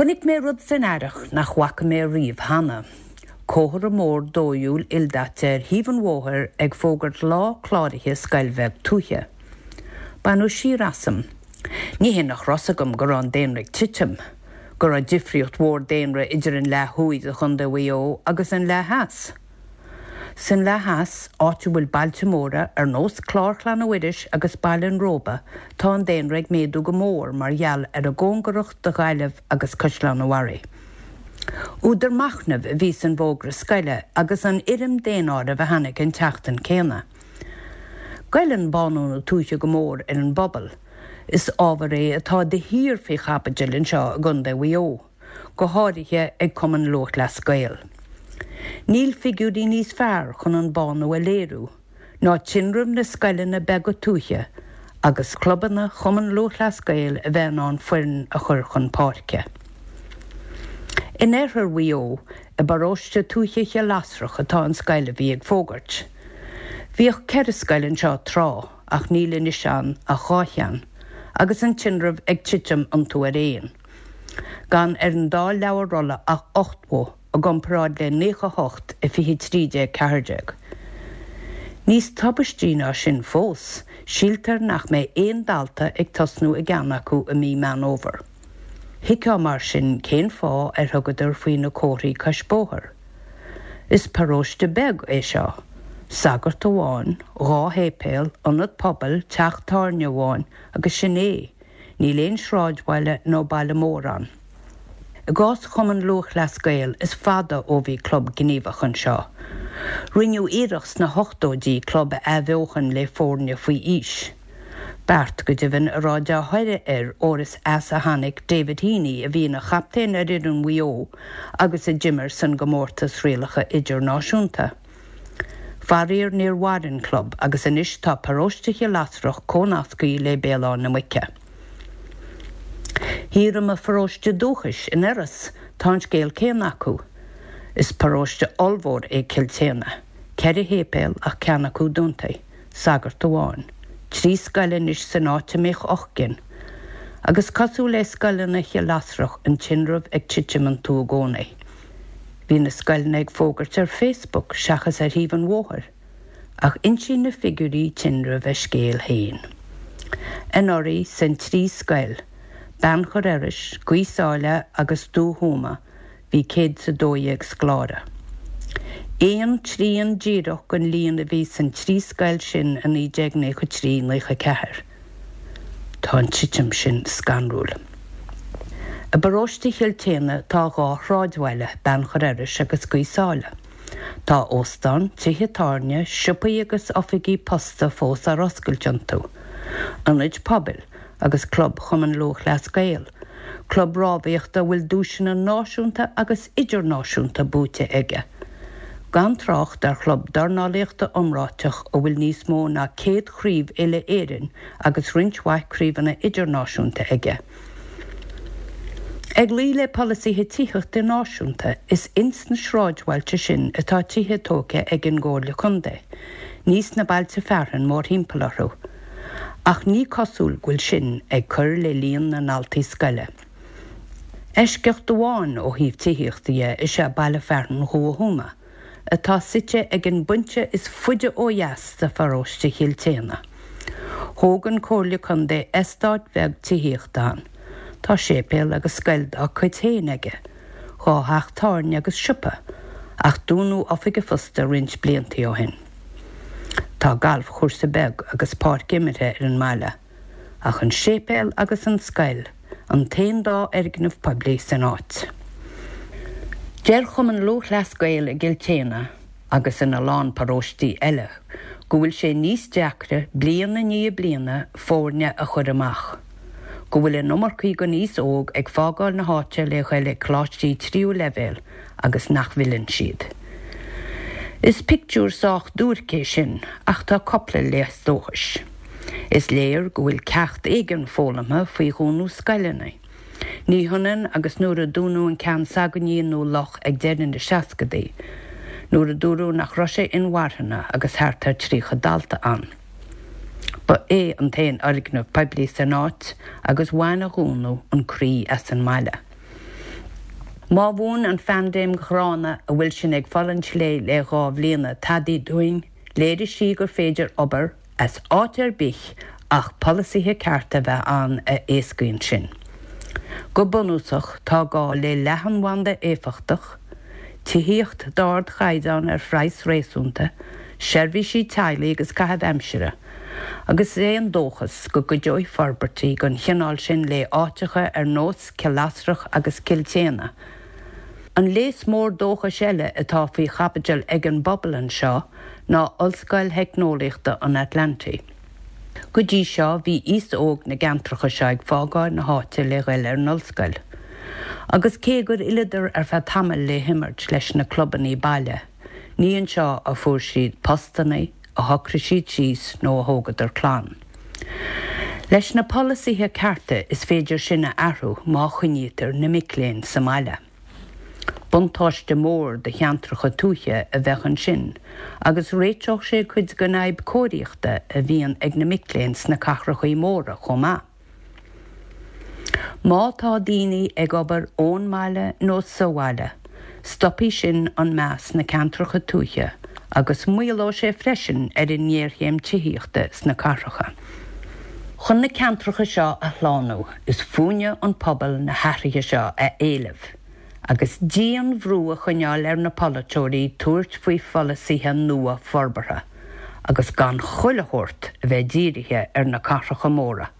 Chonaic mé rud san earrach nach bhfaca mé riamh cheana, comhartha mór dóighiúil ildaite ar thaobh an bhóthair ag fógairt lá cláraithe scoil bheag tuaithe. Baineadh siar asam. Ní hé nach raibh 's agam go raibh an daonra ag titim, go raibh difríocht mhór daonra idir an leath thuaidh de Chontae Mhaigh Eo agus an leath theas. San leath theas, áit a bhfuil bailte móra ar nós Clár Chlainne Mhuiris agus Baile an Róba, tá an daonra ag méadú go mór mar gheall ar a gcóngaracht do Ghaillimh agus Caisleán an Bharraigh. Údar machnaimh a bhí san bhfógra scoile agus an fhoirm daonáirimh a tháinig an tseachtain céanna. Goilleann bánú na tuaithe go mór ar an bpobal. Is ábhar é atá de shíor faoi chaibidil anseo i gContae Mhaigh Eo. go háirithe ag Cumann Lúthchleas Gael. Níl figiúirí níos fearr chun an bánú a léiriú ná tinreamh na scoileanna beaga tuaithe agus clubanna Chumann Lúthchleas Gael a bheith in ann foireann a chur chun páirce. In oirthear Mhaigh Eo, i bparóiste tuaithe Chill Lasrach atá an scoil a bhí ag fógairt. Bhíodh 4 scoil anseo tráth ach níl anois ann ach 2 cheann, agus an tinreamh ag titim iontu araon. Gan ar an dá leabhar rolla ach 80 i gcomparáid le 98 i 20 13 14. Níos tubaistí ná sin fós, síltear nach mbeidh aon dalta ag tosnú i gceann acu i mí Meán Fhómhair. Thuigfeá mar sin cén fáth ar thugadar faoi na comharthaí cois bóthair. Is paróiste beag é seo. Sagart amháin, 2 shéipéal, ionad pobail, teach tábhairne amháin agus sin é. Níl aon sráidbhaile nó baile mór ann. I gcás Chumann Lúthchleas Gael is fada ó bhí club gníomhach anseo. Rinneadh iarracht sna hochtóidí club a athbheochan le foirne faoi aois. Beart, go deimhin, a raibh dea-thoradh air óir is as a tháinig David Heaney a bhí ina chaptaen ar fhoireann Mhaigh Eo agus a d'imir san gcomórtas rialacha idirnáisiúnta. Faraor níor mhair an club agus anois tá paróiste Chill Lasrach comhnasctha le Béal Átha na Muice. Thiar i mo pharóiste dúchais, in Iorras, tá an scéal céanna acu. Is paróiste ollmhór é Cill tSéadhna, 4 shéipéal ach ceann acu dúnta, sagart amháin, 3 scoil anois san áit a mbíodh 8 gcinn. Agus cosúil le scoileanna Chill Lasrach an tinreamh ag titim iontu i gcónaí. Bhí na scoileanna ag fógairt ar Facebook seachas ar thaobh an bhóthair, ach insíonn na figiúirí tinrimh a scéal féin. Anuraidh, san trí scoil, Beannchar Iorrais, Gaoth Sáile agus Dumha Thuama, bhí 112 scoláire. Aon trian díreach den líon a bhí san trí scoil sin i 1993, 94. Tá an titim sin scanrúil. I bparóiste Chill tSéadhna tá 2 shráidbhaile, Beannchar Iorrais agus Gaoth Sáile. Tá óstán, tithe tábhairne, siopaí agus oifigí posta fós ar oscailt iontu, ionaid pobail agus Club Chumann Lúthchleas Gael, club rámhaíochta a bhfuil duaiseanna náisiúnta agus idirnáisiúnta buaite aige. Gan trácht ar chlub dornálaíochta iomráiteach a bhfuil níos mó ná 100 craobh uile-Éireann agus roinnt mhaith craobhanna idirnáisiúnta aige. Ag luí le polasaithe tithíochta náisiúnta, is ins na sráidbhailte sin atá tithe tógtha ag an gComhairle Contae, ní sna bailte fearainn mórthimpeall orthu. Ach ní cosúil go bhfuil sin ag cur le líon na ndaltaí scoile. Eisceacht amháin ó thaobh tithíochta dhe is ea baile fearainn Dhumha Thuama, atá suite ag an bpointe is faide ó dheas de pharóiste Chill tSéadhna. Thóg an Comhairle Contae eastát bheag tithíochta ann. Tá séipéal agus scoil dá cuid féin aige, 2 theach tábhairne agus siopa, ach dúnadh oifig an phosta roinnt blianta ó shin. Tá galfchúrsa beag agus páirc imeartha ar an mbaile. Ach an séipéal agus an scoil an t-aon dá fhoirgneamh poiblí san áit. Deir Cumann Lúthchleas Gael i gCill tSéadhna, agus ina lán paróistí eile, go bhfuil sé níos deacra bliain i ndiaidh bliana foirne a chur amach, go bhfuil an iomarcaí den aos óg ag fágáil na háite le ghoil ag coláistí tríú leibhéal agus nach bhfilleann siad. Is pictiúr sách duairc é sin ach tá cupla léas dóchais. Is léir go bhfuil ceacht éigin foghlamtha faoi dhúnadh scoileanna. Ní hionann agus nuair a dúnadh an ceann s'againne i nDún Loch ag deireadh na seascadaí, nuair a dúradh nach raibh sé inmharthana agus thart ar 30 dalta ann. Ba é an t-aon fhoirgneamh poiblí san áit agus bhain a dhúnadh an croí as an mbaile. Má mhúin an phaindéim ghránna a bhfuil sinn ag fulaingt léi le 2 bhliana tadaí dúinn, léirigh sí gur féidir obair as áit ar bith ach polasaithe cearta a bheith ann a éascaíonn sin. Go bunúsach, tá gá le leathanbhanda éifeachtach, tithíocht d'ardchaighdeán ar phraghas réasúnta, seirbhísí teaghlaigh agus caitheamh aimsire, agus is é an dóchas go gcuideoidh forbairtí den chineál sin le áiteacha ar nós Cill Lasrach agus Cill tSéadhna. An léas mór dóchais eile atá faoi chaibidil ag an bpobal anseo ná Ollscoil Theicneolaíochta an Atlantaigh. Go dtí seo bhí aos óg na gceantracha seo ag fágáil na háite le ghoil ar an ollscoil. Agus cé gur fhilleadar ar feadh tamaill le himirt leis na clubannaí baile, ní anseo a fuair siad postannaí, a shocraigh siad síos nó a thógadar clann. Leis na polasaithe cearta is féidir sin a athrú má choinnítear na mic léinn sa mbaile. Buntáiste mór do cheantracha tuaithe a bheadh ansin agus réiteodh sé cuid den fhadhb cóiríochta a bhíonn ag na mic léinn sna cathrachaí móra chomh maith. Má tá daoine ag obair ón mbaile nó sa bhaile, stopfaidh sin an meath sna ceantracha tuaithe agus maolóidh sé freisin ar an ngéarchéim tithíochta sna cathracha. Chun na ceantracha seo a shlánú, is fúinne an pobal na hathruithe seo a éileamh agus dian-bhrú a choinneáil ar na polaiteoirí tabhairt faoi pholasaithe nua forbartha agus gan chuile shórt a bheith dírithe ar na cathracha móra.